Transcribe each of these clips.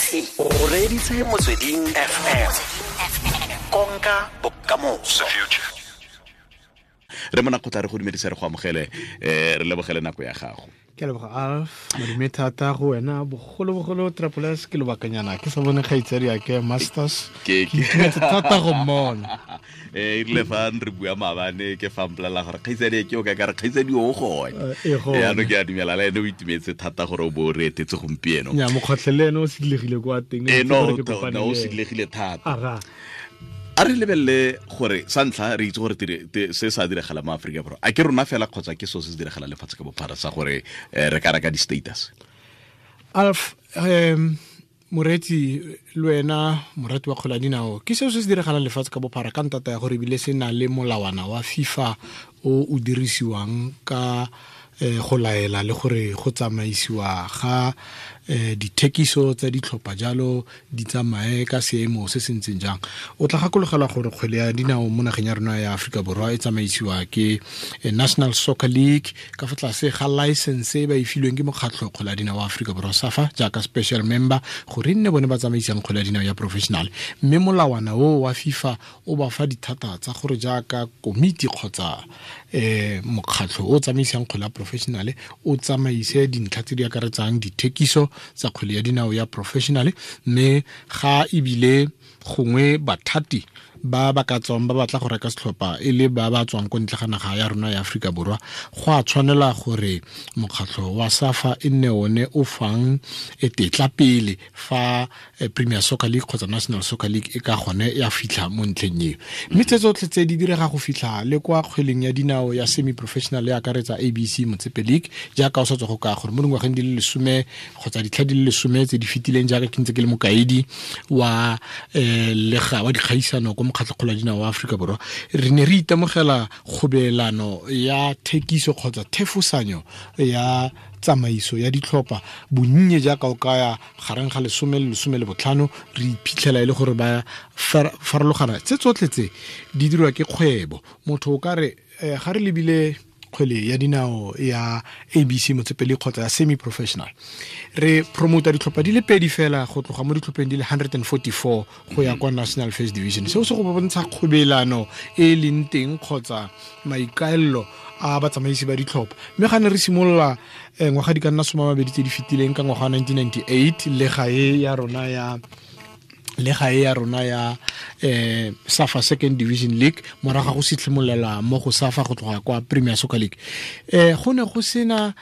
O reditse Motsweding FM, konka bokamoso. Re mona kgotla re go dumedisa, re go amogele, re lebogele nako ya gago. Ke a leboga, Alf. Madume thata go wena, bogolobogolo Trapolas. Ke lobakanyana ke sa bone kgaitsadi ke Masters. Ke itumetse thata go mmona. E rile fa re bua maabane, ke fa mpolelela gore kgaitsadi ke o ka kare kgaitsadi o gone. E gone. Yaanong ke a dumela le ene o itumetse thata gore o bo o re etetse gompieno. Nya mokgotlhe le ene o sidilegile kwa teng. E no Itse gore ke kopane no, o le ene. Sidilegile thata. Aga. A re lebelele gore sa ntlha re itse gore se sa diragala mo Aforika Borwa, a ke rona fela kgotsa ke seo se se diragala lefatshe ka bophara sa gore re ka reka di-status? Alf, moreetsi le wena morati wa kgwele ya dinao, ke seo se se diragalang lefatshe ka bophara ka ntata ya gore ebile se na le molawana wa FIFA o o dirisiwang ka go laela le gore go tsamaisiwa ga dithekiso tsa ditlhopha jalo di tsamaye ka seemo se se ntseng jang. O tla gakologelwa gore kgwele ya dinao mo nageng ya rona ya Aforika Borwa e tsamaisiwa ke National Soccer League ka fa tlase ga license e ba e filweng ke mokgatlho kgwele ya dinao wa Aforika Borwa, SAFA, jaaka special member, gore e nne bone ba tsamaisang kgwele ya dinao ya professional. Mme molawana o wa FIFA o ba fa dithata tsa gore jaaka komiti kgotsa mokgatlho o tsamaisang kgwele ya professional o tsamaise dintlha tse di akaretsang dithekiso tsa kgwele ya dinao ya professional. Mme ga ebile gongwe bathati ba ba ka tswang ba batla go reka setlhopha e le ba ba tswang ko ntle ga naga ya rona ya Aforika Borwa, go a tshwanela gore mokgatlho wa SAFA e nne one o fang tetla pele fa Premier Soccer League kgotsa National Soccer League e ka gone ya fitlha mo ntlheng eo. Mme tse tsotlhe tse di direga go fitlha le kwa kgweleng ya dinao ya semi professional e akaretsa ABC Motsepe League, jaaka o sa tswa go ka gore mo dingwageng di le 10 kgotsa ditlha di le 10 tse di fetileng, jaaka ke ntse ke le mokaedi wa lega wa dikgaisano ko mokgatlho kgolo ya dinao wa Aforika Borwa, re ne re itemogela kgobelano ya thekiso kgotsa thefosanyo ya tsamaiso ya ditlhopha bonnye jaaka o kaya gareng ga 10 le 15. Re iphitlhela e le gore ba farologana. Tse tsotlhe tse di dirwa ke kgwebo. Motho o ka re ga re lebile kgwele ya dinao ya ABC Motsepe League kgotsa ya semi professional, re promota ditlhopha di le pedi fela go tloga mo ditlhopheng di le 144 go ya kwa National First Division. Seo se go bontsha kgobelano e e leng teng kgotsa maikaelelo a batsamaisi ba ditlhopha. Mme ga ne re simolola ngwaga di ka nna 20 tse di fetileng, ka ngwaga wa 1998, le gae ya rona ya SAFA Second Division League, morago ga go sitlhimolela mo go SAFA go tloga kwa Premier Soccer League, go ne go sena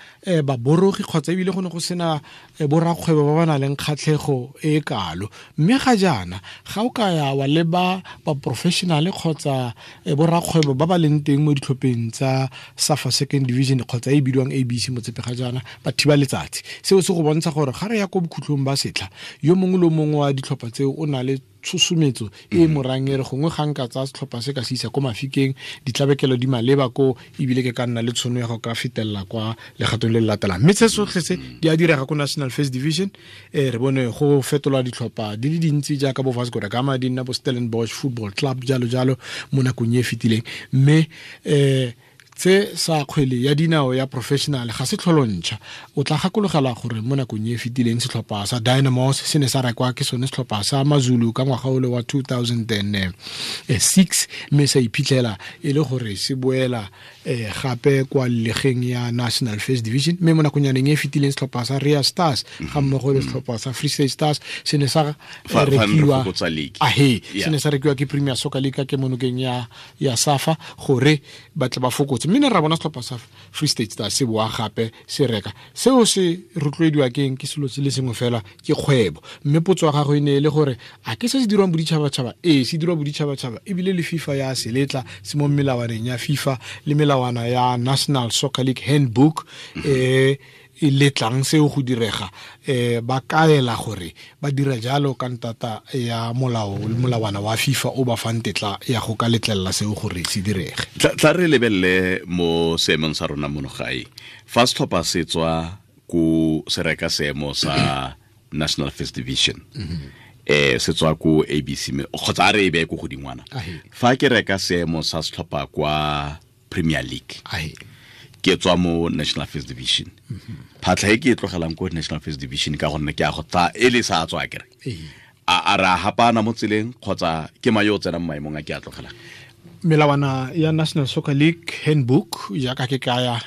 baborogi kgotsa ebile go ne go sena borakgwebo ba ba nang le kgatlhego e kalo. Mme ga jaana ga o ka ya wa leba ba professional kgotsa borakgwebo ba ba leng teng mo ditlhopheng tsa SAFA Second Division kgotsa e bidiwang ABC Motsepe ga jaana, ba thiba letsatsi. Seo se go bontsha gore ga re ya ko bokhutlong ba setlha, yo mongwe le mongwe wa ditlhopha tseo o na le tshosometso e morang e re gongwe ga nka tsaya setlhopha se ka se isa ko mafikeng, ditlabekelo di maleba ko, ebile ke ka nna le tshono ya go ka fetelela kwa legatong le le latelang. Mme se sotlhe se di a direga ko National First Division. Re bone go fetolwa ditlhopha di le dintsi jaaka bo Vasco da Gama di nna bo Stellenbosch Football Club, jalo jalo, mo nakong e e fetileng. Mme tse sa kgwele ya dinao ya professional ga se tlholontšha. O tla gakologela gore mo nakong e fetileng setlhopha sa Dynamos se ne sa rekwa ke sone setlhopha sa Mazulu ka ngwaga ole wa 2006, mme sa iphitlhela e le gore se boela gape kwa legeng ya National First Division. Mme mo nakong yaneng e fetileng setlhopha sa Ria Stars ga mmogo le setlhopha sa Free State Stars se ne sa rekiwa ahe, se ne sa rekiwa ke Premier Soccer League ka kemonokeng ya SAFA gore ba tle ba fokotse. Mme ne ra bona setlhopha sa Free State Stars se boa gape se reka. Seo se rotloediwa keng? Ke selo se le sengwe fela, ke kgwebo. Mme potso ya gago e ne e le gore a ke se se dirwang boditšhabatšhaba? Ee, se dirwa boditšhabatšhaba, ebile le FIFA ya seletla, se mo melawaneng ya FIFA le melawana ya National Soccer League Handbook e letlang seo go direga. Ba kaela gore ba dira jalo ka ntata ya molao le molawana wa FIFA o ba fang tetla ya go ka letlelela seo gore se direge. Tla re lebelele mo seemong sa rona mono gae. Fa setlhopha se tswa ko se reka seemo sa National First Division, se tswa ko ABC kgotsa a re e beye ko godingwana, fa ke reka seemo sa setlhopha kwa Premier League, Ke tswa mo National First Division. Phatlha e ke e tlogelang ko National First Division ka gonne ke a go tsa e le sa tswa kere. A ra hapana mo tseleng kgotsa ke mayo tsena mo maemong a ke a tlogelang. Melawana ya National Soccer League handbook jaaka ke kaya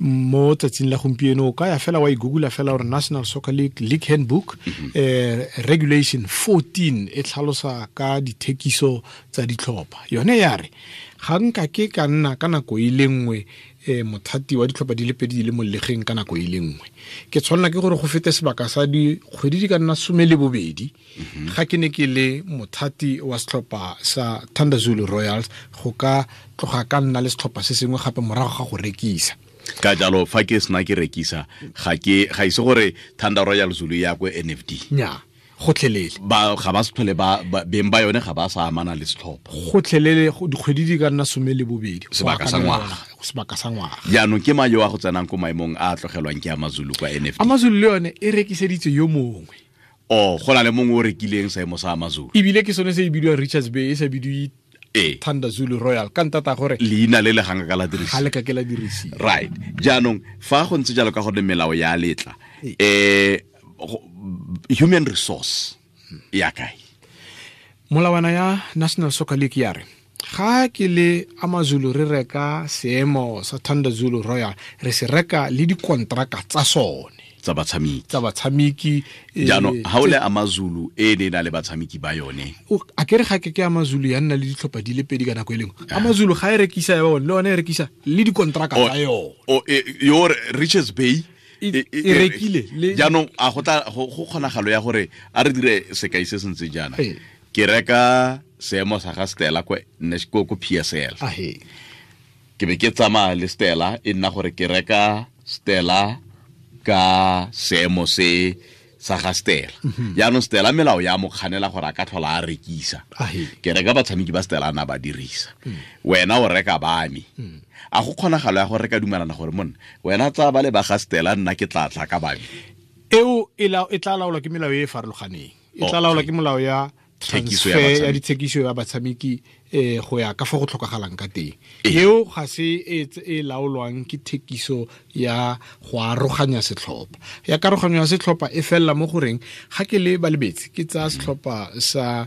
mo tsatsing la gompieno o ka ya fela wa e google fela gore National Soccer League Handbook, regulation 14 e tlhalosa ka dithekiso tsa ditlhopha. Yone ya re ga nka ke ka nna ka nako e le nngwe mothati wa ditlhopha di le pedi di le mo legeng ka nako e le nngwe. Ke tshwanela ke gore go fete sebaka sa dikgwedi di ka nna 12 ga ke ne ke le mothati wa setlhopha sa Thunder Zulu Royals go ka tloga ka nna le setlhopha se sengwe gape morago ga go rekisa. Ka jalo fa ke sena ke rekisa ga ise gore Thunder Royal Zulu ya ko NFD. Nya, gotlhelele. Ba ga ba se tlhole ba beng ba yone ga ba sa amana le setlhopha. Gotlhelele dikgwedi di ka nna 12. Sebaka sa ngwaga. Sebaka sa ngwaga. Jaanong ke mayo a go tsenang ko maemong a tlogelwang ke Amazulu kwa NFD. Amazulu le yone e rekiseditse yo mongwe. Oh, go na le mongwe o rekileng seemo sa Amazulu. Ebile ke sone se e bidiwang Richards Bay, e sa bidiwe Thunder Zulu Royal ka ntata gore leina le le ganga ka la dirisiwa. Ga le ka ke la dirisiwa. Right. Jaanong fa go ntse jalo ka gore melao ya letla human resource ya kae? Molawana ya National Soccer League ya re ga ke le Amazulu re reka seemo sa Thunder Zulu Royal, re se reka le dikontraka tsa sone tsa batshameki. Jaanong ha o le Amazulu e ne na le batshameki ba yone. A ke re ga ke Amazulu ya nna le ditlhopha di le pedi ka nako e lengwe. Amazulu ga e rekisa ya bone le yone e rekisa le dikontraka tsa yone. Yo Richards Bay e rekile. Jaanong a go tla go kgonagalo ya gore a re dire sekai se sentse jaana. Ke reka seemo sa ga Stella ko PSL. Ke be ke tsamaya le Stella e nna gore ke reka Stella ka seemo se sa ga Stella. Jaanong Stella melao ya mo kganela gore a ka tlhola a rekisa. Ke reka batshameki ba Stella na ba dirisa. Wena o reka ba me. A go kgonagalo ya gore re ka dumelana gore monna wena tsa ba le ba ga Stella nna ke tla tla ka ba me. Eo e tla laolwa ke melao e e farologaneng. E tla laolwa ke molao ya transfer ya dithekiso ya batshameki go ya ka fa go tlhokagalang ka teng. Eo ga se e laolwang ke thekiso ya go aroganya setlhopha. Ya karoganyo ya setlhopha e fella mo goreng ga ke le balebetse ke tsaya setlhopha sa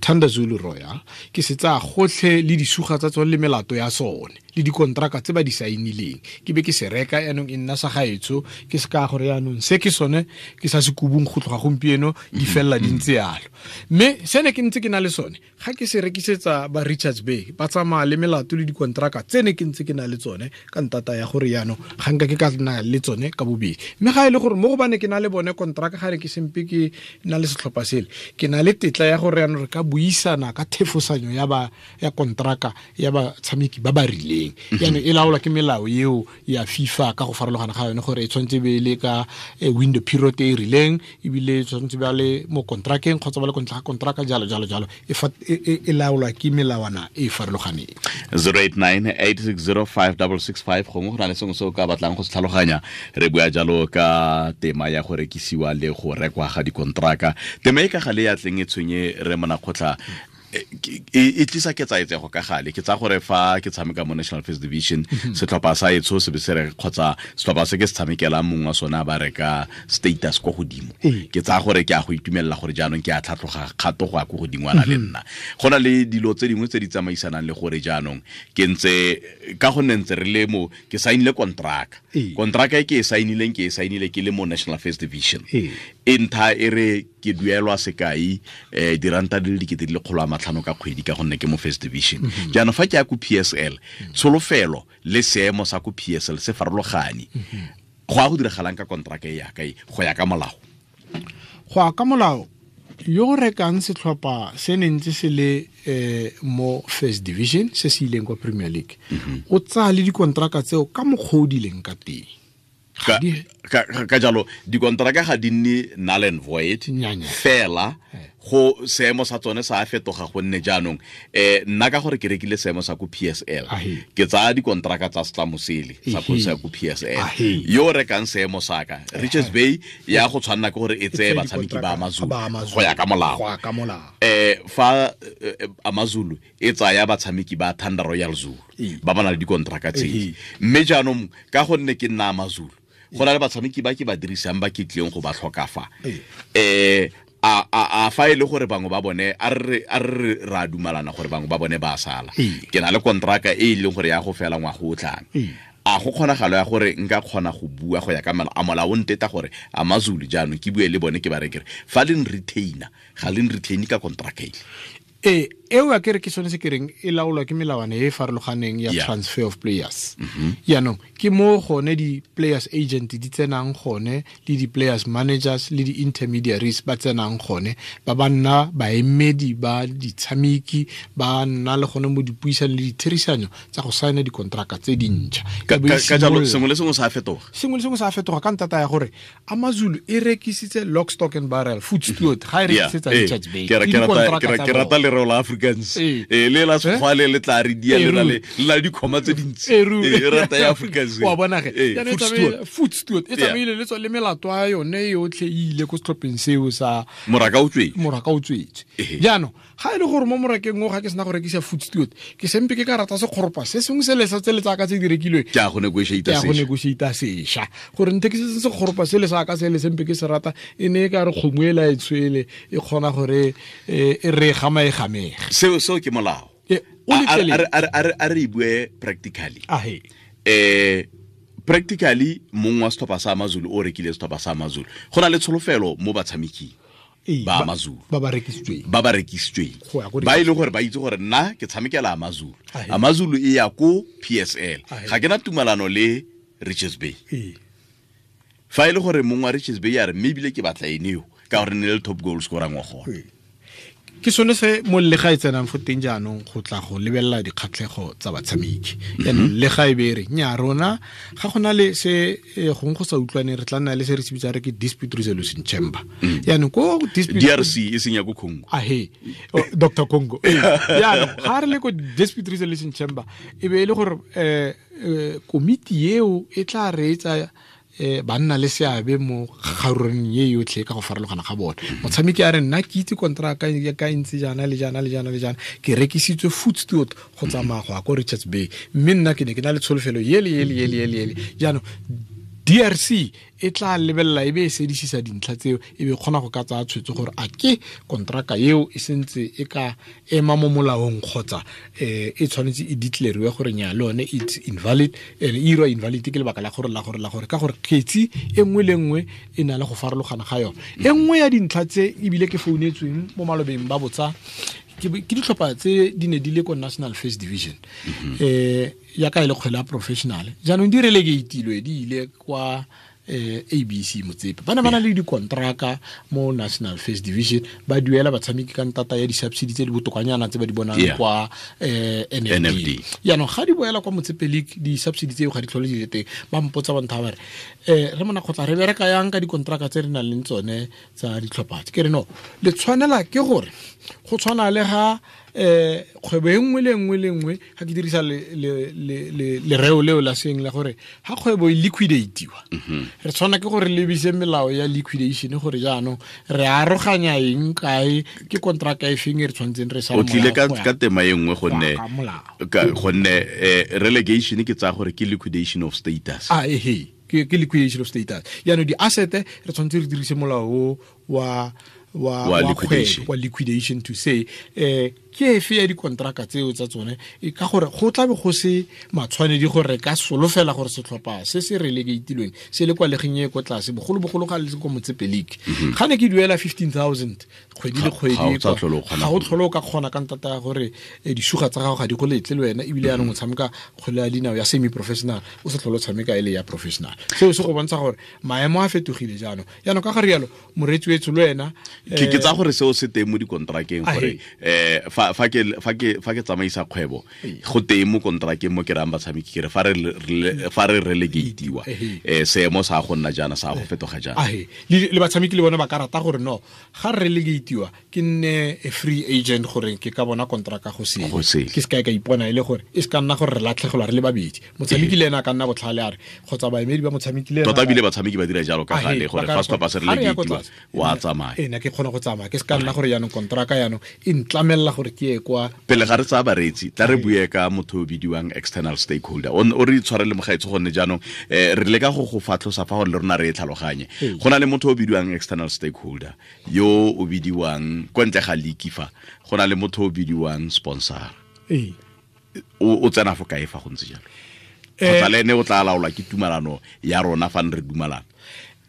Thunder Zulu Royal ke se tsaya gotlhe le disuga tsa tsone le melato ya sone le dikontraka tse ba di saenileng ke be ke se reka yaanong e nna sa gaetsho ke se ka gore yaanong se ke sone ke sa se kubung go tloga gompieno di fella di ntse yalo. Mme se ne ke ntse ke na le sone ga ke se rekisetsa ba Richards Bay ba tsamaya le melato le dikontraka tse ne ke ntse ke na le tsone ka ntata ya gore yaanong ga nka ke ka nna le tsone ka bobedi. Mme ga e le gore mo go bane ke na le bone kontraka ga re ke sempe ke na le setlhopha sele ke na le tetla ya gore yaanong re ka buisana ka thefosanyo ya ba ya kontraka ya batshameki ba ba rileng. Yaanong e laolwa ke melao eo ya FIFA ka go farologana ga yone gore e tshwanetse be le ka window period e rileng ebile e tshwanetse ba le mo kontrakeng kgotsa ba le kontlha kontraka jalo jalo jalo e laolwa ke melawana e farologaneng. 089 860 5665 gongwe go na le sengwe se o ka batlang go se tlhaloganya. Re bua jalo ka tema ya go rekisiwa le go rekwa ga dikontraka. Tema e ka gale ya tleng e tshwenye re Monakgotla e tlisa ketsaetsego ka gale. Ke tsa gore fa ke tshameka mo National First Division setlhopha sa etsho se be se re kgotsa setlhopha se ke se tshamekelang mongwe wa sona ba reka status ko godimo. Ke tsa gore ke a go itumelela gore jaanong ke a tlhatlhoga kgato go ya ko godingwana le nna. Go na le dilo tse dingwe tse di tsamaisanang le gore jaanong ke ntse ka gonne ntse re le mo ke sainile kontraka. Kontraka e ke e sainileng ke e sainile ke le mo National First Division. E ntha e re ke duelwa sekai diranta di le 2,500 ka kgwedi ka gonne ke mo First Division. Jaanong fa ke ya ko PSL tsholofelo le seemo sa ko PSL se farologane. Go a go diragalang ka kontraka e ya kae go ya ka molao? Go ya ka molao yo rekang setlhopha se ne ntse se le mo First Division se se ileng kwa Premier League o tsaya le dikontraka tseo ka mokgwa o di leng ka teng. Ka jalo dikontraka ga di nne null and void fela Go seemo sa tsone sa fetoga gonne jaanong nna ka gore ke rekile seemo sa ko PSL ke tsaya dikontraka tsa setlamo sele sa ko PSL yo rekang seemo sa ka Richards Bay ya go tshwanna ke gore e tseye batshameki ba AmaZulu go ya ka molao fa AmaZulu e tsaya batshameki ba Thunder Royal Zulu ba ba na le dikontraka tse mme jaanong ka gonne ke nna AmaZulu go na le batshameki ba ke ba dirisang ba ke tlileng go ba tlhoka fa a fa ile gore bangwe ba bone a re ra dumalana gore bangwe ba bone ba sala ke na le kontraka e leng gore ya go fela ngwa go tlang a go kgonagalo ya gore nka kgona go bua go ya ka molao o nteta gore AmaZulu jaanong ke bue le bone ke ba rekere fa le retainer ga le retain ka kontraka e eo a kere ke sone se ke reng e laolwa ke melawana e farologaneng ya transfer of players. Jaanong ke mo gone di-players agent di tsenang gone le di-players managers le di-intermediaries ba tsenang gone ba ba nna baemedi ba ditshameki ba nna le gone mo dipuisanong le ditherisanyo tsa go saena dikontraka tse dintšha. Ka jalo sengwe le sengwe sa fetoga. Sengwe le sengwe sa fetoga ka ntata ya gore AmaZulu e rekisitse lock stock and barrel food steward ga e rekisetsa Richards Bay. Ke rata lereo la Afrikaans le la sekgwa le tla re dia le la dikhoma tse dintsi e rata ya Afrikaans wa bona ge food steward e tsamaile le tswa le melato ya yone yotlhe e ile ko setlhopheng seo sa moraka o tswetse. Jaanong ga e le gore mo morakeng o ga ke sena go rekisa food steward ke sempe ke ka rata sekgoropa se sengwe se le sa tse le tsaka tse di rekilweng ke a go negotiate sesha gore nthe ke se sekgoropa se le sa ka se le sempe ke se rata e ne e ka re kgomo e la e tshwele e kgona gore e re gama e gamege. Seo ke molao. A re bue practically. Practically mongwe wa setlhopha sa AmaZulu o rekile setlhopha sa AmaZulu go na le tsholofelo mo batshameking ba AmaZulu ba ba rekisitsweng ba ile gore ba itse gore nna ke tshamekela AmaZulu AmaZulu e ya ko PSL ga ke na tumalano le Richards Bay fa ile gore mongwe wa Richards Bay ya re mme ebile ke batla ene yo ka gore ne le top goal scorer ngwa gone. Ke sone se mo le ga e tsenang fo teng jaanong go tla go lebelela dikgatlhego tsa batshameki. Jaanong le ga e be re nya rona ga gona le se gongwe go sa utlwane re tla nna le se re se bitsang re ke dispute resolution chamber. Jaanong ko dispute DRC e seng ya ko Congo. Ahe Dr Congo. Jaanong ga re le ko dispute resolution chamber e be e le gore komiti eo e tla reetsa ba nna le seabe mo kgarureng ye yotlhe ka go farologana ga bone. Motshameki a re nna ke itse kontraka ya ka ntse jaana le jaana le jaana le jaana ke rekisitswe food steward go tsamaya go ya ko Richards Bay mme nna ke ne ke na le tsholofelo yele yele yele yele yele. Jaanong DRC e tla lebelela e be e sedisisa dintlha tseo e be kgona go ka tsaya tshwetso gore a ke kontraka eo e sentse e ka ema mo molaong kgotsa e tshwanetse e declare gore nya le yone it's invalid and e irwa invalid ke lebaka la gore la gore la gore ka gore kgetsi e nngwe le nngwe e na le go farologana ga yone. E nngwe ya dintlha tse ebile ke founetsweng mo malobeng ba botsa ke ditlhopha tse di ne di le ko National First Division ya ka ile kgwele ya professional jaanong di relegatilwe di ile kwa ABC Motsepe ba ne ba na le dikontraka mo National First Division ba duela batshameki ka ntata ya di-subsidy tse di botokanyana tse ba di bonang kwa NFD. Jaanong ga di boela kwa Motsepe League di-subsidy tseo ga di tlhole di le teng ba mpotsa ba ntha ba re re mona kgotla re bereka yang ka dikontraka tse re nang le tsone tsa ditlhopha tse ke re no le tshwanela ke gore go tshwana le ga kgwebo e nngwe le nngwe le nngwe ga ke dirisa lereo leo la seng la gore ga kgwebo e liquidatiwa re tshwana ke gore lebise melao ya liquidation gore jaanong re aroganya eng kae ke kontraka e feng e re tshwanetseng re sa o tlile ka tema e nngwe gonne relegation ke tsaya gore ke liquidation of status. Ke liquidation of status. Jaanong di-asset re tshwanetse re dirise molao wa liquidation to say ke efe ya dikontraka tseo tsa tsone ka gore go tlabe go se matshwanedi gore ka solofela gore setlhopha se se relegatilweng se le kwa legeng e ko tlase bogolobogolo ga le ko Motsepe League ga ne ke duela 15,000 kgwedi le kgwedi ga o tlhole o ka kgona ka ntata ya gore disuga tsa gago ga di go letle le wena ebile yaanong o tshameka kgwele ya dinao ya semi professional o sa tlhole o tshameka e le ya professional. Seo se go bontsha gore maemo a fetogile jaanong. Jaanong ka ga rialo moreetsi wetsho le wena ke tsa gore seo se teng mo dikontrakeng gore Fa ke tsamaisa kgwebo go teng mo kontrakeng mo ke rang batshameki ke re fa re relegatiwa seemo sa go nna jaana sa go fetoga jaana. Le batshameki le bone ba ka rata gore no ga re relegatiwa ke nne a free agent gore ke ka bona kontraka go sele, ke se ka ipona e le gore e se ka nna gore re latlhegelwa re le babedi. Motshameki le ena a ka nna botlhale a re kgotsa baemedi ba motshameki le ena tota bile batshameki ba dira jalo ka gale gore fa setlhopha se relegatiwa wa tsamaya. Nna ke kgona go tsamaya ke se ka nna gore jaanong kontraka jaanong e ntlamelela gore ke ye kwa. Pele ga re tsaya bareetsi tla re bue ka motho o bidiwang external stakeholder o re itshwarele mogaetsho gonne jaanong re leka go go fatlhosa fa gore le rona re e tlhaloganye. Go na le motho o bidiwang external stakeholder yo o bidiwang kwa ntle ga league fa go na le motho o bidiwang sponsor. O tsena fo kae fa go ntse jalo? Kgotsa le ene o tla laolwa ke tumalano ya rona fa re dumalana?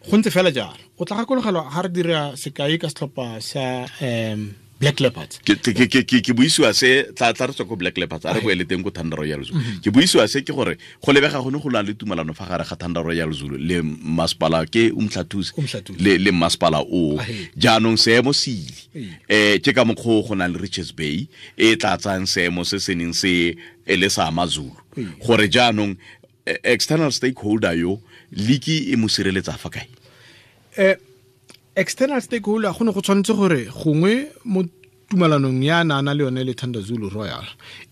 Go ntse fela jalo. O tla gakologelwa ga re dira sekai ka setlhopha sa Black Leopards. Ke buisiwa se tla re tswa ko Black Leopards a re boele teng ko Thunder Royal Zulu. Ke buisiwa se ke gore go lebega gone go na le tumalano fa gare ga Thunder Royal Zulu le masepala ke Umhlathuze le masepala o. Jaanong seemo se ile. Ke ka mokgwa go na le Richards Bay e tla tsayang seemo se se neng se e le sa Amazulu. Gore jaanong external stakeholder yo liki e mo sireletsa fa kae? External stakeholder go ne go tshwanetse gore gongwe mo tumalanong ya na le yone le Thunder Zulu Royal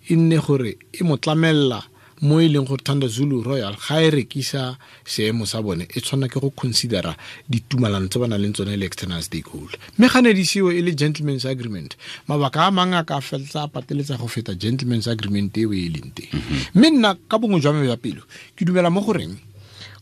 e nne gore e mo tlamella mo e leng gore Thunder Zulu Royal ga e rekisa seemo sa bone e tshwana ke go considera ditumalano tse ba nang le tsone le external stakeholder. Mme ga ne di seo e le gentleman's agreement, mabaka a mangwe a ka feletsa a pateletsa go feta gentleman's agreement eo e leng teng. Mme nna ka bongwe jwa me jwa pelo ke dumela mo goreng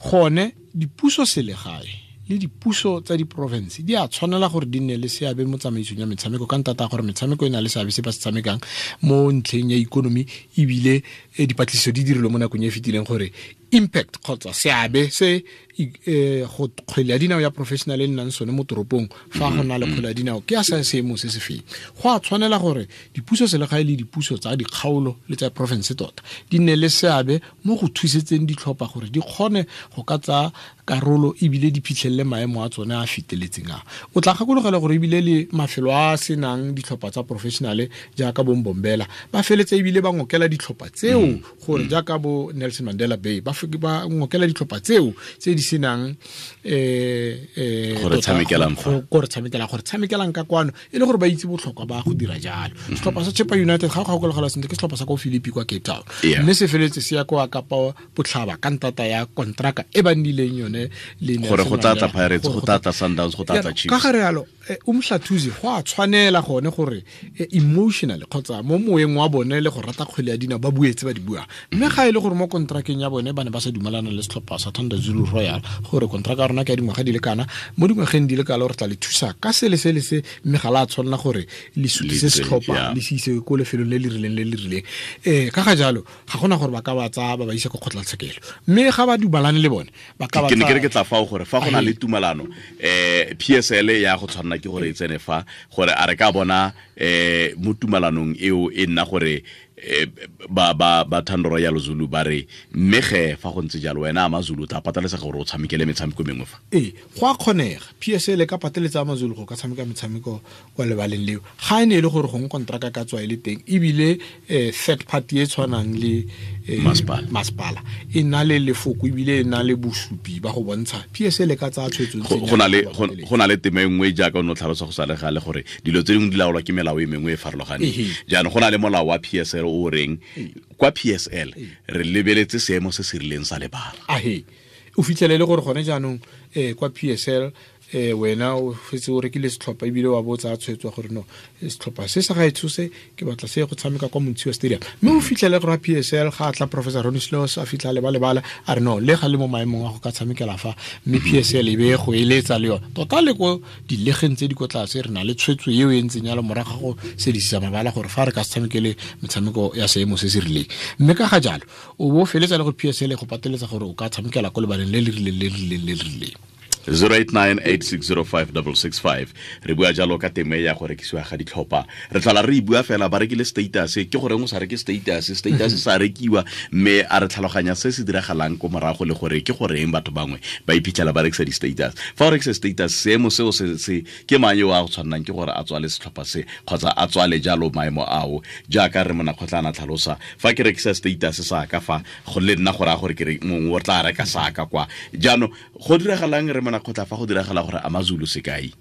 gone dipuso selegae le dipuso tsa diprovince di a tshwanela gore di nne le seabe mo tsamaisong ya metshameko ka ntata gore metshameko e na le seabe se ba se tshamekang mo ntlheng ya ikonomi, ebile dipatlisiso di dirilwe mo nakong e fetileng gore impact kgotsa seabe se go kgwele ya dinao ya professional e nnang sone mo toropong fa go na le kgwele ya dinao ke ya sa seemo se se feng. Go a tshwanela gore dipuso selegae le dipuso tsa dikgaolo le tsa province tota di nne le seabe mo go thusetseng ditlhopha gore di kgone go ka tsaya karolo ebile di phitlhelele maemo a tsone a feteletseng a. O tla gakologela gore ebile le mafelo a senang ditlhopha tsa professional jaaka bo Mbombela ba feletse ebile ba ngokela ditlhopha tseo gore jaaka bo Nelson Mandela Bay ba ngokela ditlhopha tseo tse di senang gore tshamekelang ka kwano e le gore ba itse botlhokwa ba go dira jalo. Setlhopha sa Chippa United ga go gakologela sentle ke setlhopha sa ko Philippi kwa Cape Town, mme se feletse se ya kwa Kapa Botlhaba ka ntata ya kontraka e ba nnileng yone le gore go tla tla Pirates, go tla tla Sundowns, go tla tla Chiefs. Ka gare yalo Umhlathuze go a tshwanela gone gore emotionally kgotsa mo moeng wa bone le go rata kgwele ya dinao ba buetse ba di buang. Mme ga e le gore mo kontrakeng ya bone ba ne ba sa dumalana le setlhopha sa Thunder Zulu Royal gore kontraka ya rona ke ya dingwaga di le kana, mo dingwageng di le kalo re tla le thusa ka se le se le se, mme ga la tshwanela gore le sutise setlhopha le se ise ko lefelong le le rileng le le rileng. Ka ga jalo ga gona gore ba ka ba tsaya ba ba isa ko kgotlatshekelo, mme ga ba dumalane le bone ba ka ba ke ne ke re ke tla fao gore fa go na le tumalano PSL ya go tshwanela ke gore e tsene fa gore a re ka bona mo tumalanong eo e nna gore ba Thunder Royal Zulu ba re mme ge fa go ntse jalo wena Amazulu tla pateletsa gore o tshamekele metshameko mengwe fa. Go a kgonega PSL ka pateletsa Amazulu go ka tshameka metshameko kwa lebaleng leo ga e ne e le gore gongwe kontraka ka tswa e le teng ebile third party e tshwanang le masepala e na le lefoko ebile e na le bosupi ba go bontsha PSL ka tsaya tshwetso. Go na le tema e nngwe jaaka o ne o tlhalosa go sa le gale gore dilo tse dingwe di laolwa ke melao e mengwe e farologaneng. Jaanong go na le molao wa PSL o reng kwa PSL re lebeletse seemo se se rileng sa lebala. O fitlhelele gore gone jaanong kwa PSL wena o fetse o rekile setlhopha ebile wa botsa tshwetso gore no setlhopha se sa gaetsho se ke batla se go tshameka kwa Montshiwa Stadium, mme o fitlhele gore PSL ga tla Professor Ronnie Sloss a fitlha le ba a re no le ga le mo maemong a go ka tshamekela fa, mme PSL e be go eletsa le yone tota le ko dilegeng tse di ko tlase re na le tshwetso eo e ntseng yalo morago ga go sedisisa mabala gore fa re ka se tshamekele metshameko ya seemo se se rileng. Mme ka ga jalo o bo feletsa le go PSL go pateletsa gore o ka tshamekela ko lebaleng le le rileng le le rileng le le rileng. 0898605665 re bua jalo ka teme ya go rekisiwa ga ditlhopha. Re tlhola re bua fela ba rekile status, ke gore o sa reke status, status sa rekiwa, mme a re tlhaloganya se se diragalang ko morago le gore ke goreng batho bangwe ba iphitlhela ba rekisa di-status. Fa o rekisa status, seemo seo se ke mang yo a go tshwannang ke gore a tswale setlhopha se kgotsa a tswale jalo maemo ao, jaaka re Monakgotla a tlhalosa, fa ke rekisa status sa ka fa go le nna gore a gore ke re mongwe o tla reka sa ka kwa. Jaanong go diragalang re Monakgotla fa go diragala gore AmaZulu sekai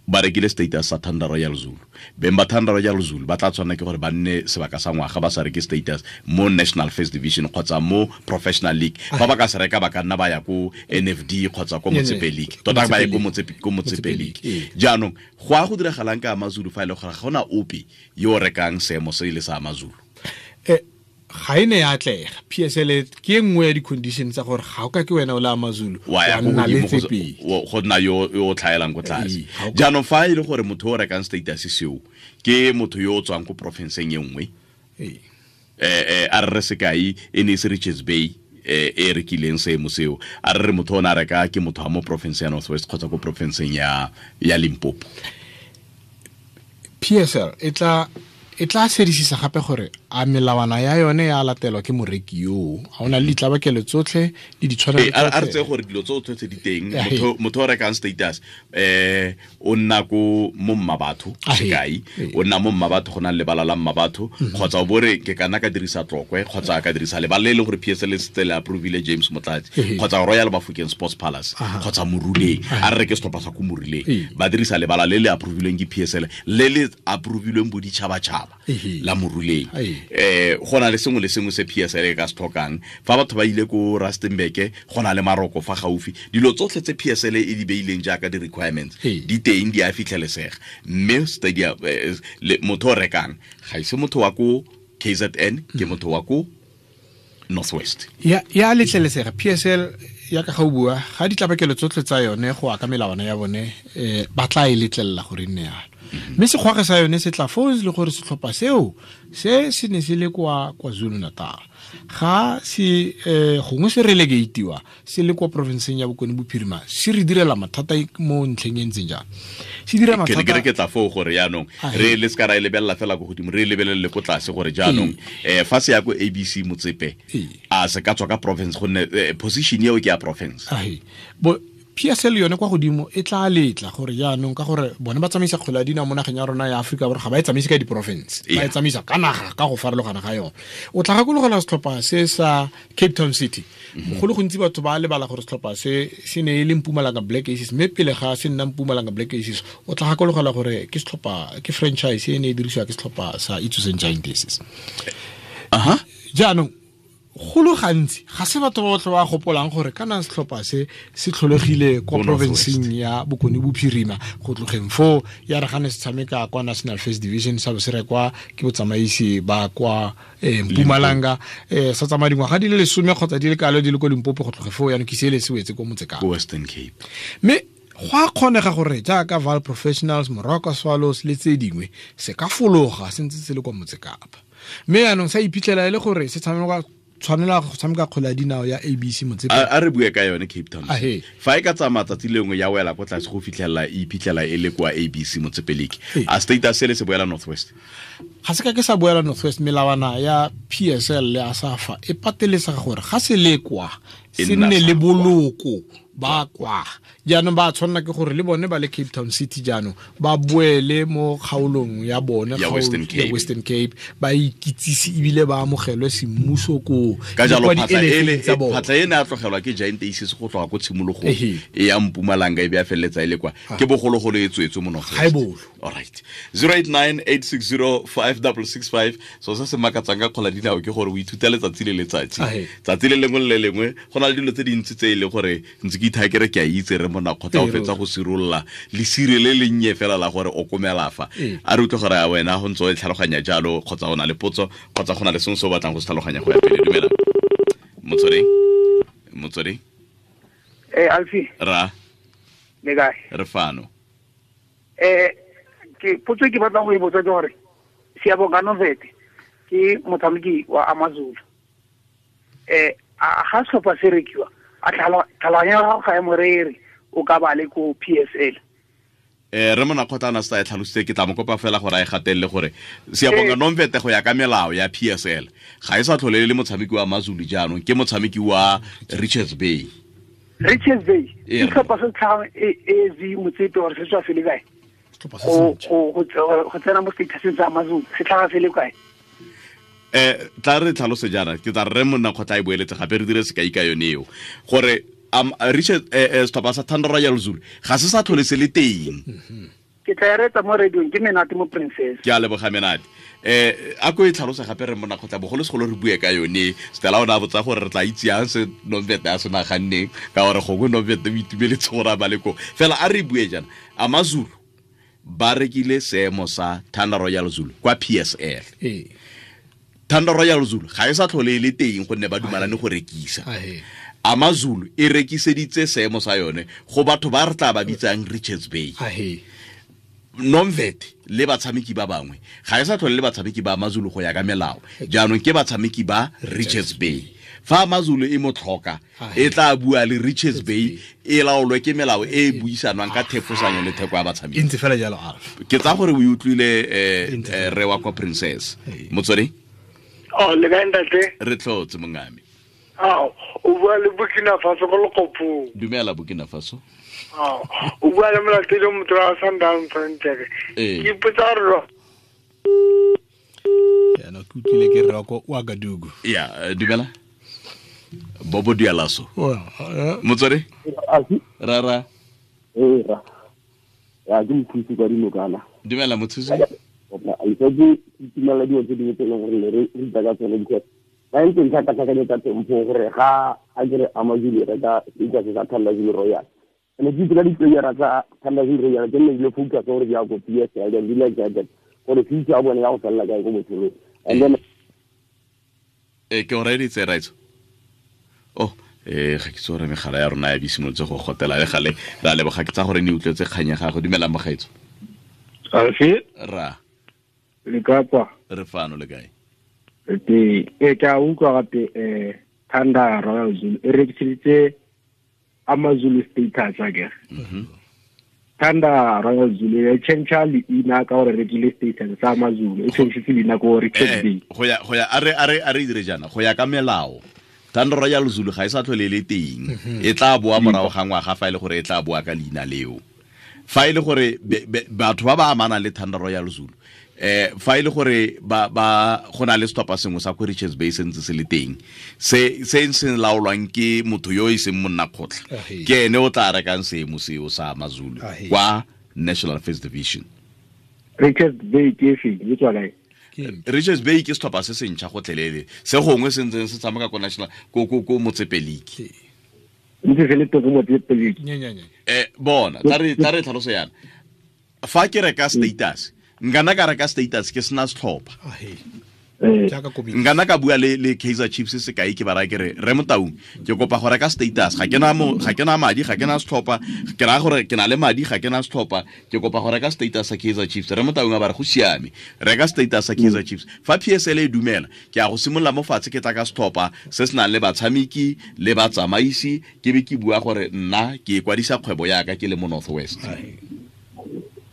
ba rekile status sa Thunder Royal Zulu, beng ba Thunder Royal Zulu ba tla tshwanela ke gore ba nne sebaka sa ngwaga ba sa reke status mo National First Division kgotsa mo Professional League. Fa ba ka se reka ba ka nna ba ya ko NFD kgotsa ko Motsepe League, tota ba ye ko Motsepe League. Jaanong go a go diragalang ka AmaZulu fa e le gore ga gona ope yo o rekang seemo se ile sa AmaZulu? Ga e ne ya atlega. PSL ke e nngwe ya di-condition tsa gore ga o ka ke wena o le AmaZulu wa nna le tse go nna yo o tlhaelang ko tlase. Jaanong fa e le gore motho o rekang status seo ke motho yo o tswang ko porofenseng e nngwe, a re re sekai e ne e se Richards Bay e rekileng seemo seo, a re re motho o ne a reka ke motho wa mo porofenseng ya North West kgotsa ko porofenseng ya Limpopo. PSL e tla sedisisa gape gore a melawana ya yone ya latelwa ke moreki yo, a ona le ditlabakelo tsotlhe le ditshwanelo tsotlhe. A re tse gore dilo tsotlhe tse di teng, motho o rekang status o nna ko mo Mmabatho sekai, o nna mo Mmabatho go na le lebala la Mmabatho, kgotsa o bore ke kana ka dirisa Tlokwe kgotsa ka dirisa lebala le e leng gore PSL e setse le approvile James Motlatsi, kgotsa Royal Bafokeng Sports Palace kgotsa Moruleng, a re reke setlhopha sa ko Moruleng, ba dirisa lebala le le approvilweng ke PSL le le approvilweng boditšhabatšhaba la Moruleng. Go na le sengwe le sengwe se PSL e ka se tlhokang. Fa batho ba ile ko Rustenburg go na le maroko fa gaufi, dilo tsotlhe tse PSL e di beileng jaaka di-requirements di teng, di a fitlhelesega. Mme stadium motho o rekang ga ise motho wa ko KZN, ke motho wa ko North West. Ya letlelesega. PSL ya ka ga o bua ga ditlabakelo tsotlhe tsa yone go ya ka melawana ya bone, ba tla e letlelela gore e nne yalo. Mme sekgwage sa yone se tla foo le gore setlhopha seo se se ne se le kwa KwaZulu Natal, ga se gongwe se relegatewa se le kwa provinceng ya Bokone Bophirima, se re direla mathata mo ntlheng e ntseng jang. Se dira mathata. Ke re ke tla foo gore jaanong re le se ka ra e lebelela fela ko godimo, re e lebelele ko tlase gore jaanong fa se ya ko ABC Motsepe a se ka tswa ka province, gonne position eo ke ya province. PSL yone kwa godimo e tla letla gore jaanong ka gore bone ba tsamaisa kgwele ya dinao mo nageng ya rona ya Aforika Borwa, ga ba e tsamaise ka diporofense, ba e tsamaisa ka naga ka go farologana ga yone. O tla gakologela setlhopha se sa Cape Town City, go le gontsi batho ba lebala gore setlhopha se se ne e le Mpumalanga Black Aces, mme pele ga se nna Mpumalanga Black Aces o tla gakologela gore ke setlhopha, ke franchise e ne e dirisiwa ke setlhopha sa Itsoseng Giant Aces. Jaanong go le gantsi ga se batho ba botlhe ba gopolang gore kana setlhopha se se tlholegile kwa provinceng ya Bokone Bophirima, go tlogeng foo ya re gane se tshameka kwa National First Division sa bo se rekwa ke botsamaisi ba kwa Mpumalanga, sa tsamaya dingwaga di le 10 kgotsa di le kalo di le ko Limpopo, go tloge foo jaanong ke se le se wetse ko Motsekapa, Western Cape. Mme go a kgonega gore jaaka Val Professionals, Moroka Swallows le tse dingwe se ka fologa se ntse se le kwa Motsekapa, mme jaanong sa iphitlhela e le gore se tshameka tshwanela go tshameka kgwele ya dinao ya ABC Motsepe. A re bue ka yone Cape Town. Fa e ka tsamaya tsatsi lengwe ya wela ko tlase go fitlhela e iphitlhela e le kwa ABC Motsepe League, a status se le se boela North West? Ga se ka ke sa boela North West. Melawana ya PSL le ASAFA e pateletsa gore ga se le kwa se nne le boloko ba kwa. Jaanong ba tshwanela ke gore le bone ba le Cape Town City jaanong ba boele mo kgaolong ya bone ya Western Cape, Western Cape, ba ikitsise ebile ba amogelwe semmuso koo. Ka jalo phatla e ne a tlogelwa ke Giant Aces go tloga ko tshimologong e ya Mpumalanga e be a feleletsa e le kwa, ke bogologolo e tswetswe mo North West. All right, 0898605665. So se se makatsang ka kgwele ya dinao ke gore o ithuta letsatsi le letsatsi, tsatsi le lengwe le lengwe go na le dilo tse dintsi tse e le gore ntse ke ithaya ke re ke a itse re Monakgotla o fetsa go sirolola lesire le lennye fela la gore o komela fa. A re utlwe gore a wena go ntse o e tlhaloganya jalo, kgotsa o na le potso, kgotsa go na le sengwe se o batlang go se tlhaloganya go ya pele. Dumela Motsweding. Alfie. Ra le kae? Re fano. Ke potso ke batlang go e botsa ke gore Siyabonga Nomvete ke motshameki wa AmaZulu. A ga setlhopha se rekiwa, a tlhaloganya ya gago ga e morere, o ka ba le ko PSL. Re mona kgotla sa e tlhalositse, ke tla mo kopa fela gore a e gatelele gore Siyabonga Nomvete go ya ka melao ya PSL ga e sa tlhole le motshameki wa Amazulu jaanong, ke motshameki wa Richards Bay. Richards Bay ke setlhopha se tlhagang AZ Motsepe gore se tswa se le kae? Go tsena mo statuseng sa Amazulu se tlhaga se le kae? Tla re tlhalose jaana, ke tla re monna kgotla e boeletse gape re dire sekai ka yone eo gore Richard setlhopha sa Thunder Royal Zulu ga se sa tlhole se le teng. Ke tla e retsa mo radiong, ke Menate mo Princess. Ke a leboga Menate. A ko e tlhalose gape re monna kgotla, bogolosegolo re bue ka yone. Stella o ne a botsa gore re tla itse yang se Nomvete a se naganneng, ka gore gongwe Nomvete o itumeletse gore a ba le koo. Fela a re bue jaana, Amazulu ba rekile seemo sa Thunder Royal Zulu kwa PSL. Thunder Royal Zulu ga e sa tlhole e le teng gonne ba dumalane go rekisa. Amazulu e rekiseditse seemo sa yone go batho ba re tla ba bitsang Richards Bay. Nomvete le batshameki ba bangwe ga e sa tlhole le batshameki ba Amazulu go ya ka melao, jaanong ke batshameki ba Richards Bay. Fa Amazulu e mo tlhoka e tla bua le Richards Bay, e laolwe ke melao e e buisanwang ka thefosanyo le theko ya batshameki. E ntse fela jalo, Alf. Ke tsa gore o e utlwile re wa kwa Princess. Motswedi? Oh, le kae ntate? Re tlhotse mongame. Ah, o bua le Burkina Faso go Lekopong. Dumela Burkina Faso. Ah, o bua le molatedi o motho wa Sundowns ntle. Ke ipotsa gore ya no ke utlwile ke re ko Ouagadougou. Ya, dumela. Bobo Dialaso. Motswedi? Rara. Ra. Ya ke mothusi kwa dinokana. Dumela mothusi. A itse ke dilo tse dingwe tse e leng gore re ruta ka tsone because ba ntse ntlhakatlhakanye tsa teng gore ga a kere Amazulu re ka status sa Thunder Zulu Royal. Ene ke itse ka di-playera tsa Thunder Zulu Royal ke nne dilo focus gore di ya ko PSL then di like that gore future ya bone ya go felela kae ko botshelong. And then ke o reeditse raitso. Oh, ga ke itse gore megala ya rona ya be simolotse go gotela le gale. Ra leboga, ke tsa gore ne utlwetse kgang ya gago. Dumelang mogaetso. Alfi? Ra. Le kapa? Re fano le kae? Ke a utlwa gape Thunder Royal Zulu e rekiseditse Amazulu status akere. Thunder Royal Zulu e change leina ka gore rekile status sa Amazulu, e change leina ko Richards Bay. Go ya a re dire jaana go ya ka melao. Thunder Royal Zulu ga e sa tlhole le teng. E tla boa morago ga ngwaga fa e le gore e tla boa ka leina leo. Fa e le gore batho ba ba amanang le Thunder Royal Zulu fa e le gore ba go na le setlhopha sengwe sa ko Richards Bay se ntse se le teng se se laolwang ke motho yo e seng monna kgotla, ke ene o tla rekang seemo seo sa Amazulu kwa National First Division. Richards Bay ke efe? E tswa kae? Richards Bay ke setlhopha se se ntšha gotlhelele se gongwe se ntseng se tshameka ko National ko Motsepe League. Ntse se le teng ko Motsepe League. Bona tla re tlhaloso yana. Fa ke reka status, nkana ka reka status ke sena setlhopha. Nkana ka bua le Kaizer Chiefs sekai ke ba raya ke re re Motaung ke kopa go reka status, ga ke na madi, ga ke na setlhopha, ke raya gore ke na le madi, ga ke na setlhopha, ke kopa go reka status sa Kaizer Chiefs. Re Motaung a ba re go siame, reka status sa Kaizer Chiefs. Fa PSL e dumela, ke a go simolola mo fatshe ke tla ka setlhopha se se nang le batshameki le batsamaisi, ke be ke bua gore nna ke ikwadisa kgwebo yaka ke le mo North West.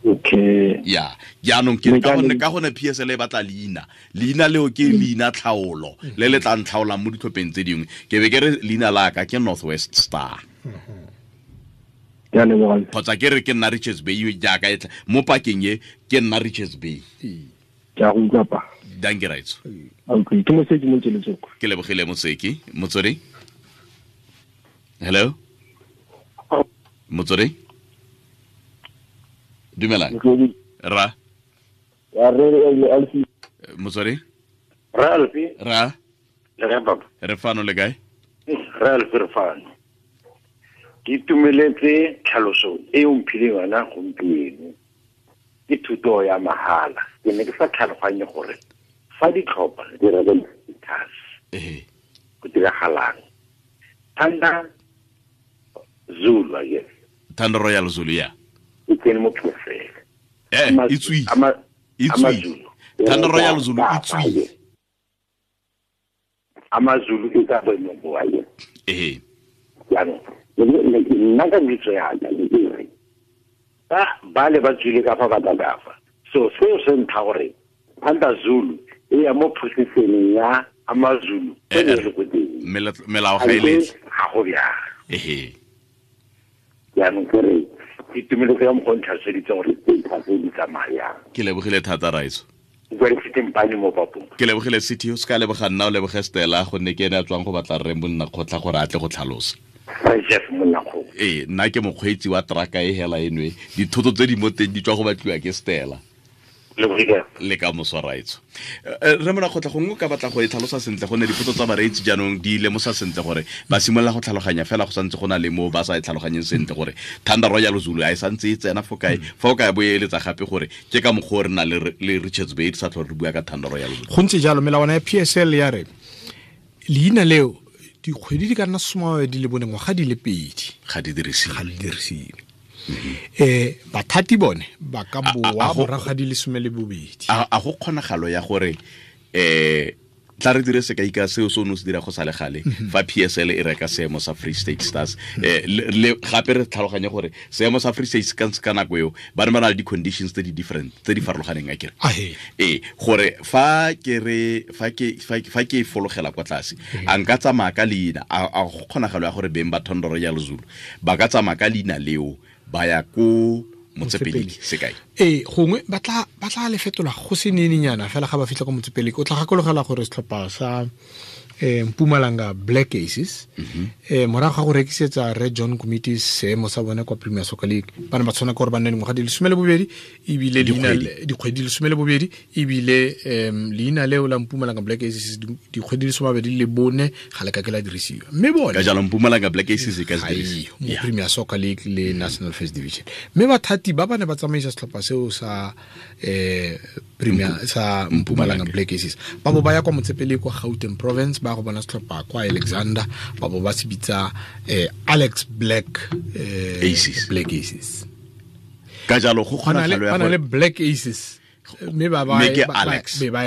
Okay. Ya, jaanong ke ka gone PSL e batla leina. Leina leo ke leina tlhaolo le le tla ntlhaolang mo ditlhopheng tse dingwe. Ke be ke re leina la ka ke North West Star. Kgotsa ke re ke nna Richards Bay jaaka e tla mo pakeng e ke nna Richards Bay. Ke a go utlwa pa. Dankie raitso. Okay, ke Moseki mo Tseletsoko. Ke lebogile Moseki. Motswedi? Hello? Motswedi? Dumelang. Ra. Ya re Alfi. Motswedi? Ra Alfi. Ra. Le kae papa? Re fano le kae? Ra Alfi re fano. Ke itumeletse tlhaloso e o mphileng yona gompieno. Ke thuto ya mahala. Ke ne ke sa tlhaloganye gore fa ditlhopha di reka status. Go diragalang. Thunder Zulu, I guess. Thunder Royal Zulu, ya. E tsene mo PSL. E tswile. E tswile. Thunder Royal Zulu e tswile. Amazulu e ka boemo bo a. Jaanong Nna ka kitso yaka ke re ba le ba tswile ka fa ba tla ka fa. So seo se ntlha gore Thunder Zulu e ya mo positioneng ya AmaZulu e le ko teng. Melao ga e letle. Ga go bjalo. Ehe. Jaanong ke re ke itumeletse ka mokgwa o ntlhaloseditseng gore tse tse di tsamayang. Ke lebogile thata Raiso. Ke lebogile City, o se ka leboga nna, o leboge Stella, gonne ke ene a tswang go batla rre monna kgotla gore a tle go tlhalosa. Ee, nna ke mokgweetsi wa traka e hela enwe, dithoto tse di mo teng di tswa go batliwa ke Stella. Le ka moso Raitso. Re mona kgotla gongwe ka batla go e tlhalosa sentle gonne dipotso tsa bareetsi jaanong di lemosa sentle gore ba simolola go tlhaloganya fela go santse go na le mo ba sa e tlhaloganyeng sentle gore Thunder Royal Zulu a e santse e tsena fo kae, fa o ka bo e eletsa gape gore ke ka mokgwa o re na le Richards Bay sa tlhole re bua ka Thunder Royal Zulu. Go ntse jalo, melawana ya PSL ya re leina leo dikgwedi di ka nna 24 ngwaga di le 2 ga di dirisiwe. Bathati bone ba ka boa morago ga di le 12. A go kgonagalo ya gore tla re dire sekai ka seo se o ne o se dira go sa le gale fa PSL e reka seemo sa Free State Stars, le gape re tlhaloganye gore seemo sa Free State ka nako eo ba ne ba na le di-conditions tse di different, tse di farologaneng akere. Gore fa ke re fa ke fologela kwa tlase a nka tsamaya ka leina, a go kgonagalo ya gore beng ba Thunder Royal Zulu ba ka tsamaya ka leina leo ba ya ko Motsepeleki sekai. Gongwe ba tla le fetola go se nenenyana fela ga ba fitlha ko Motsepeleki. O tla gakologela gore setlhopha sa Mpumalanga Black Aces morago ga go rekisetsa Red John Committee seemo sa bone kwa Premier Soccer League, ba ne ba tshwana ke gore ba nne dingwaga di le 12 ebile dikgwedi di le 12 ebile leina leo la Mpumalanga Black Aces dikgwedi di le 24 ga le ka ke la dirisiwa. Mme bone ka jalo Mpumalanga Black Aces e ka se dirisiwa mo Premier Soccer League le National First Division. Mme bathati ba ba ne ba tsamaisa setlhopha seo sa Premier sa Mpumalanga Black Aces ba bo ba ya kwa Motsepele kwa Gauteng Province, ba go bona setlhopha kwa Alexander, ba bo ba se bitsa Alex Black Aces. Black Aces. Ka jalo go kgonagalo ya gore le Black Aces mme ba ba e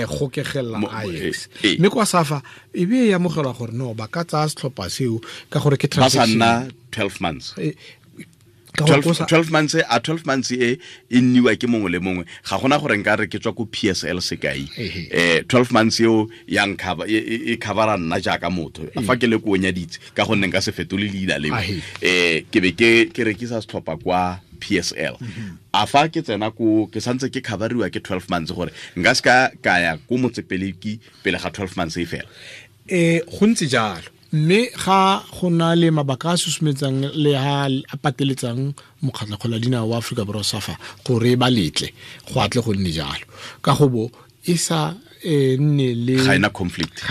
gokegela Alex. Mme kwa Safa e be ya amogelwa gore no ba ka tsaya setlhopha seo ka gore ke transaction ba sa nna 12 months. 12 months a 12 months e nniwa ke mongwe le mongwe, ga gona gore nka re ke tswa ko PSL sekai 12 months eo ya nkhaba e covera nna jaaka motho fa ke le ko nyaditse ka gonne nka se fetole leina leo, ke be ke rekisa setlhopha kwa PSL. A fa ke tsena ko ke santse ke coveriwa ke 12 months gore nka se ka ya ko Motsepeleki pele ga 12 months e fela. Go ntse jalo. Mme ga go na le mabaka a susumetsang le ha a pateletsang mokgatlho kgola dinao wa Afrika Borwa SAFA gore ba letle go atle go nne jalo, ka go bo e sa nne le ga ena conflict,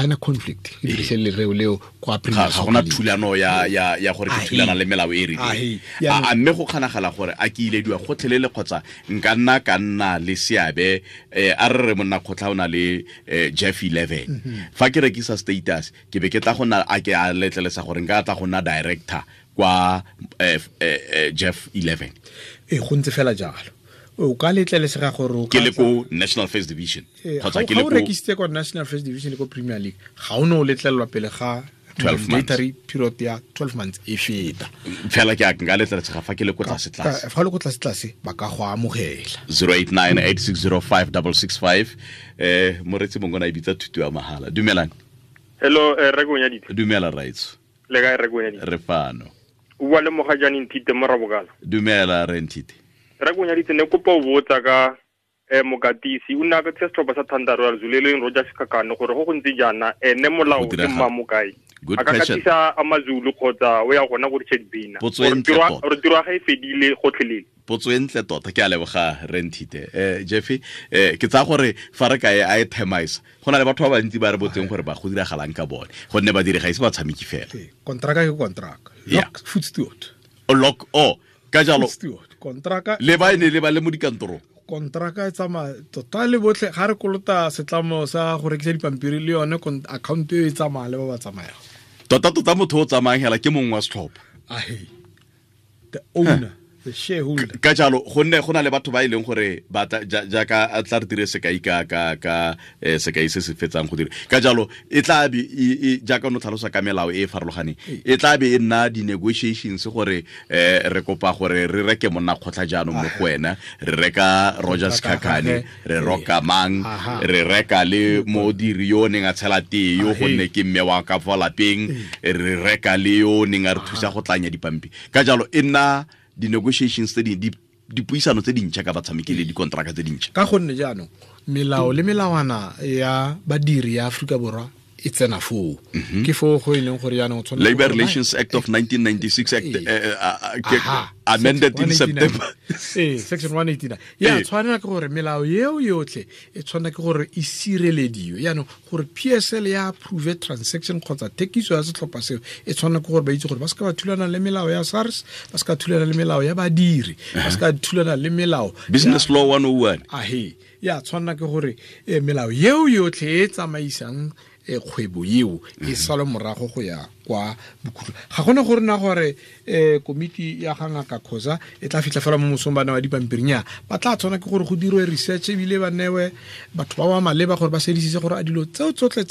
e dirise lereo leo kwa Premier ga gona thulano ya gore ke thulana le melao e rileng. A mme go kgonagala gore a ke ilediwa gotlhelele kgotsa nka nna ka nna le seabe, a re re monna kgotla o na le Jeff 11, fa ke rekisa status ke be ke tla go nna a ke a letlelesa gore nka tla go nna director kwa Jeff 11. Go ntse fela jalo. O ka letlelesega gore o ke le ko National First Division kgotsa ke le ko rekisitse kwa National First Division le ko Premier League, ga o ne o letlelelwa pele ga 12 months period ya 12 months e feta. Fela ke a nka letlelesega fa ke le ko tlase tlase. Fa le ko tlase tlase ba ka go amogela. 0898605665 moretsi mongwe na e bitsa thuto ya mahala. Dumelang. Hello, re go nyaditse. Dumela Raitso. Le kae re go nyaditse? Re fano. O bua le Mogajane Nthite mo Rabokala. Dumela re Nthite. Re go nyaditse ne kopa o botsa ka mokatisi o nna ka setlhopha sa Thunder Royal Zulu le Roger Sikakane gore go go ntse jaana ene molao ke mma mokae. A ka katisa AmaZulu kgotsa o ya gona go Richard Bina. Gore tiro ga e fedile gotlhelele. Potso e ntle tota, ke a leboga re Nthite. Jeffy, ke tsaya gore fa re ka e a e themaisa, go na le batho ba bantsi ba re botseng gore ba go diragalang ka bone, gonne ba dire ga ise ba tshameki fela. Kontraka ke kontraka. Lock foot steward. Lock o ka jalo kontraka le ba ene le ba le mo dikantorong. Kontraka e tsamaya tota le botlhe ga re kolota setlamo sa go rekisa dipampiri le yone account e tsamaya le ba ba tsamayang. Tota tota motho o tsamayang hela ke mongwe wa setlhopha. The owner. The shareholder. Ka jalo gonne go na le batho ba e leng gore ba jaaka a tla re dire sekai ka sekai se se fetsang go dira. Ka jalo e tla be jaaka no tlhalosa ka melao e e farologaneng, e tla be e nna di-negotiations gore re kopa gore re reke monna kgotla jaanong mo go wena, re reka Roger Sikhakhane, re roka mang, re reka le modiri yo neng a tshela tee yo gonne ke mme wa ka fa lapeng, re reka le yo neng a re thusa go tlanya dipampi. Ka jalo e nna di-negotiations tse dipuisano tse dintšha ka batshameki le dikontraka tse dintšha. Ka gonne jaanong melao le melawana ya badiri ya Aforika Borwa e tsena foo. Ke foo go e leng gore jaanong tshwanetse Labor Relations Act of 1996 Act amended in September. Section 189. Ya tshwanela ke gore melao eo yotlhe e tshwanela ke gore e sirelediwe. Jaanong gore PSL ya approve transaction kgotsa thekiso ya setlhopha seo e tshwanela ke gore ba itse gore ba se ka ba thulana le melao ya SARS, ba se ka thulana le melao ya badiri, ba se ka thulana le melao Business Law 101. Ahe, ya tshwanela ke gore melao eo yotlhe e tsamaisang kgwebo eo e sale morago go ya kwa bokhutlo. Ga gone gore na gore komiti ya ga Ngaka Khoza e tla fitlha fela mo mosong ba newa dipampirinya, ba tla tshwana ke gore go dirwe research ebile ba newe batho ba ba maleba gore ba sedisitse gore a dilo tseo tsotlhe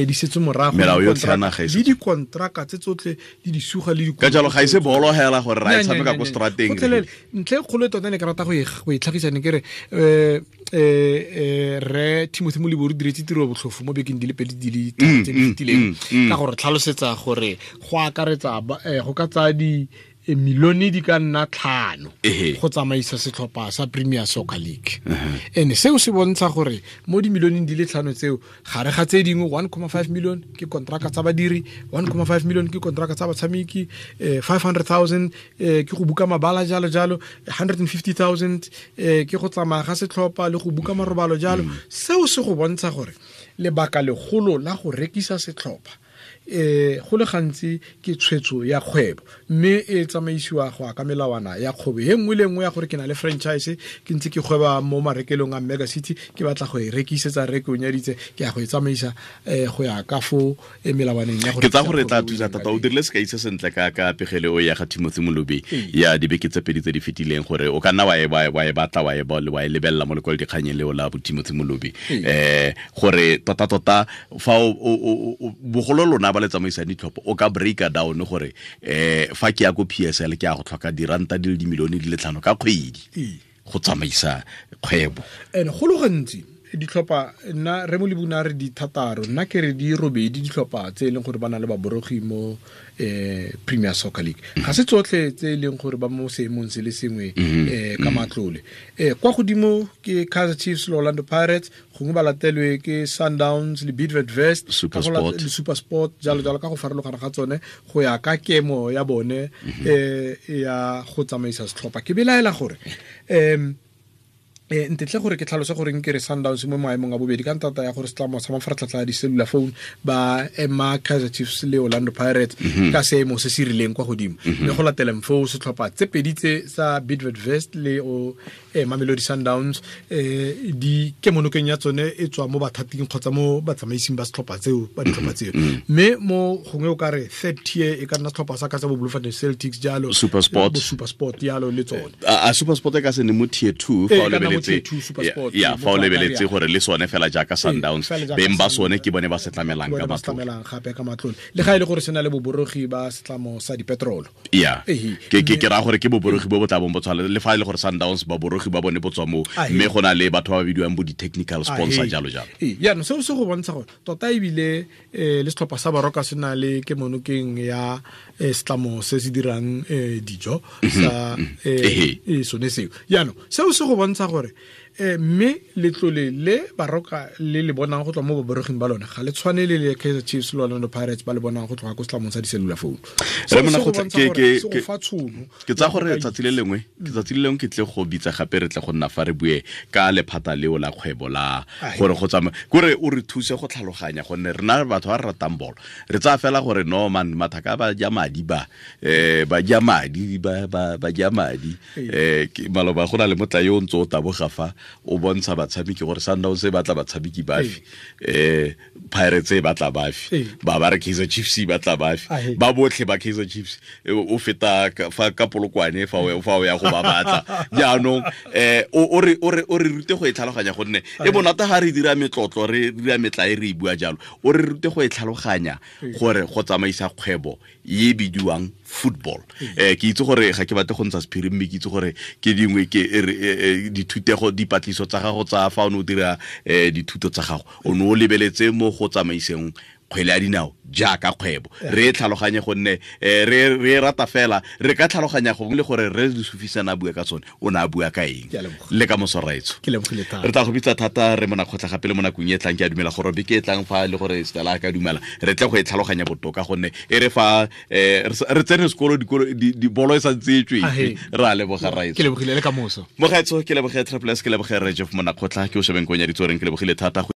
di setse morago, le dikontraka tse tsotlhe di di suga le ka jalo ga ise bolo hela gore ra e tshameka ko strateng. Ntle kgolo tota ne ke rata go e tlhagisa ne ke re re Timothy Molibori diretse tiro botlhofo mo bekeng di le pedi di le tharo tse di fetileng ka gore tlhalosetsa gore go akaretsa go ka tsaya di milione di ka nna 5 go tsamaisa setlhopha sa Premier Soccer League. Ene seo se bontsha gore mo dimilioneng di le 5 tseo gare ga tse dingwe 1.5 million ke kontraka tsa badiri, 1.5 million ke kontraka tsa batshameki, 500,000 ke go buka mabala jalo jalo, 150,000 ke go tsamaya ga setlhopha le go buka marobalo jalo. Seo se go bontsha gore lebaka legolo la go rekisa setlhopha go le gantsi ke tshwetso ya kgwebo, mme e tsamaisiwa go ya ka melawana ya kgwebo e nngwe le nngwe ya gore ke na le franchise, ke ntse ke gweba mo marekelong a Mega City, ke batla go e rekisetsa reke o nyaditse, ke ya go e tsamaisa go ya ka fo melawaneng ya gore. Ke tsa gore tla thusa thata. O dirile sekai se sentle ka pegelo ya ga Timothy Molobi ya dibeke tse pedi tse di fetileng gore o ka nna wa e batla wa e lebelela mo lekwalodikganyeng leo la bo Timothy Molobi, gore tota fa o bogolo lona ba le tsamaisang ditlhopho o ka breaka down gore fa ke ya ko PSL ke ya go tlhoka diranta di le dimilione di le 5 ka kgwedi go tsamaisa kgwebo. And go le gantsi ditlhopha nna re Molibuna re di thataro, nna ke re di robedi ditlhopha tse e leng gore ba na le baborogi mo Premier Soccer League. Ga se tsotlhe tse e leng gore ba mo seemong se le sengwe ka matlole. Kwa godimo ke Kaizer Chiefs le Orlando Pirates, gongwe ba latelwe ke Sundowns le Bidvest le SuperSport jalo jalo ka go farologana ga tsone go ya ka kemo ya bone ya go tsamaisa setlhopha. Ke belaela gore ntetle gore ke tlhalose gore nke re Sundowns mo maemong a bobedi ka ntata ya gore setlamo sa mafaratlhatlha a di-cellular phone ba ema Kaizer Chiefs le Orlando Pirates ka seemo se se rileng kwa godimo, mme go lateleng foo setlhopha tse pedi tse sa Bidvest le o Mamelodi Sundowns di kemonokeng ya tsone e tswa mo bathating kgotsa mo batsamaising ba setlhopha tseo ba ditlhopha tseo. Mme mo gongwe o ka re third tier e ka nna setlhopha sa ka tsa bo Bloemfontein Celtics jalo, SuperSport jalo le tsone. A SuperSport e ka se ne mo tier 2 fa o lebeletse ya fa o lebeletse gore le sone fela jaaka Sundowns beng ba sone ke bone ba se tlamelang ka matlole gape ka matlole, le ga e le gore se na le boborogi ba setlamo sa dipetrolo. Ya ke ra gore ke boborogi bo bo tla bong bo tshwana le fa e le gore Sundowns baborogi ba bone bo tswa mo, mme go na le batho ba ba bidiwang bo di-technical sponsor jalo jalo. Jaanong seo se go bontsha gore tota ebile le setlhopha sa Baroka se na le kemonokeng ya setlamo se se dirang dijo sa sone seo. Jaanong seo se go bontsha gore mme letlole le Baroka le le bonang go tswa mo baboroging ba lone ga le tshwane le le Kaizer Chiefs le Orlando Pirates ba le bonang go tloga ko setlamong sa di-cellular phone. Ke tsa gore tsatsi le lengwe ke tle go bitsa gape re tle go nna fa re bue ka lephata leo la kgwebo la gore go tsamaya kore o re thuse go tlhaloganya gonne rena batho ba re ratang bolo re tsaya fela gore no man mathaka ba ja madi ba ba ja madi ba ja madi maloba go na le motla yo o ntse o taboga dikologa fa o bontsha batshameki gore Sundowns e batla batshameki bafe, Pirates e batla bafe, ba ba re Kaizer Chiefs e batla bafe, ba botlhe ba Kaizer Chiefs o feta fa ka Polokwane fa o ya go ba batla. Jaanong o re rute go e tlhaloganya gonne e bonata ga re dira metlotlo re dira metla e re e bua jalo, o re rute go e tlhaloganya gore go tsamaisa kgwebo e bidiwang football. Ke itse gore ga ke batle go ntsha sephiri, mme ke itse gore ke dingwe ke dithutego dipatliso tsa gago tsa fa o ne o dira dithuto tsa gago, o ne o lebeletse mo go tsamaiseng kgwele ya dinao jaaka kgwebo. Re e tlhaloganye gonne re rata fela, re ka tlhaloganya gongwe le gore re Sufisana a bua ka tsone, o ne a bua ka eng. Le ka moso raetso, re tla go bitsa thata re Monakgotla gape le mo nakong e tlang. Ke a dumela gore beke e tlang fa le gore Stella a ka dumela, re tle go e tlhaloganya botoka gonne e re fa re tsene sekolo dibolo e santse e tswetse. Re a leboga raetso. Ke lebogile le ka moso. Mogaetso, ke leboge Triple S, ke leboge Re Jeff Monakgotla, ke o shebeng ko nyaditso reng, ke lebogile thata.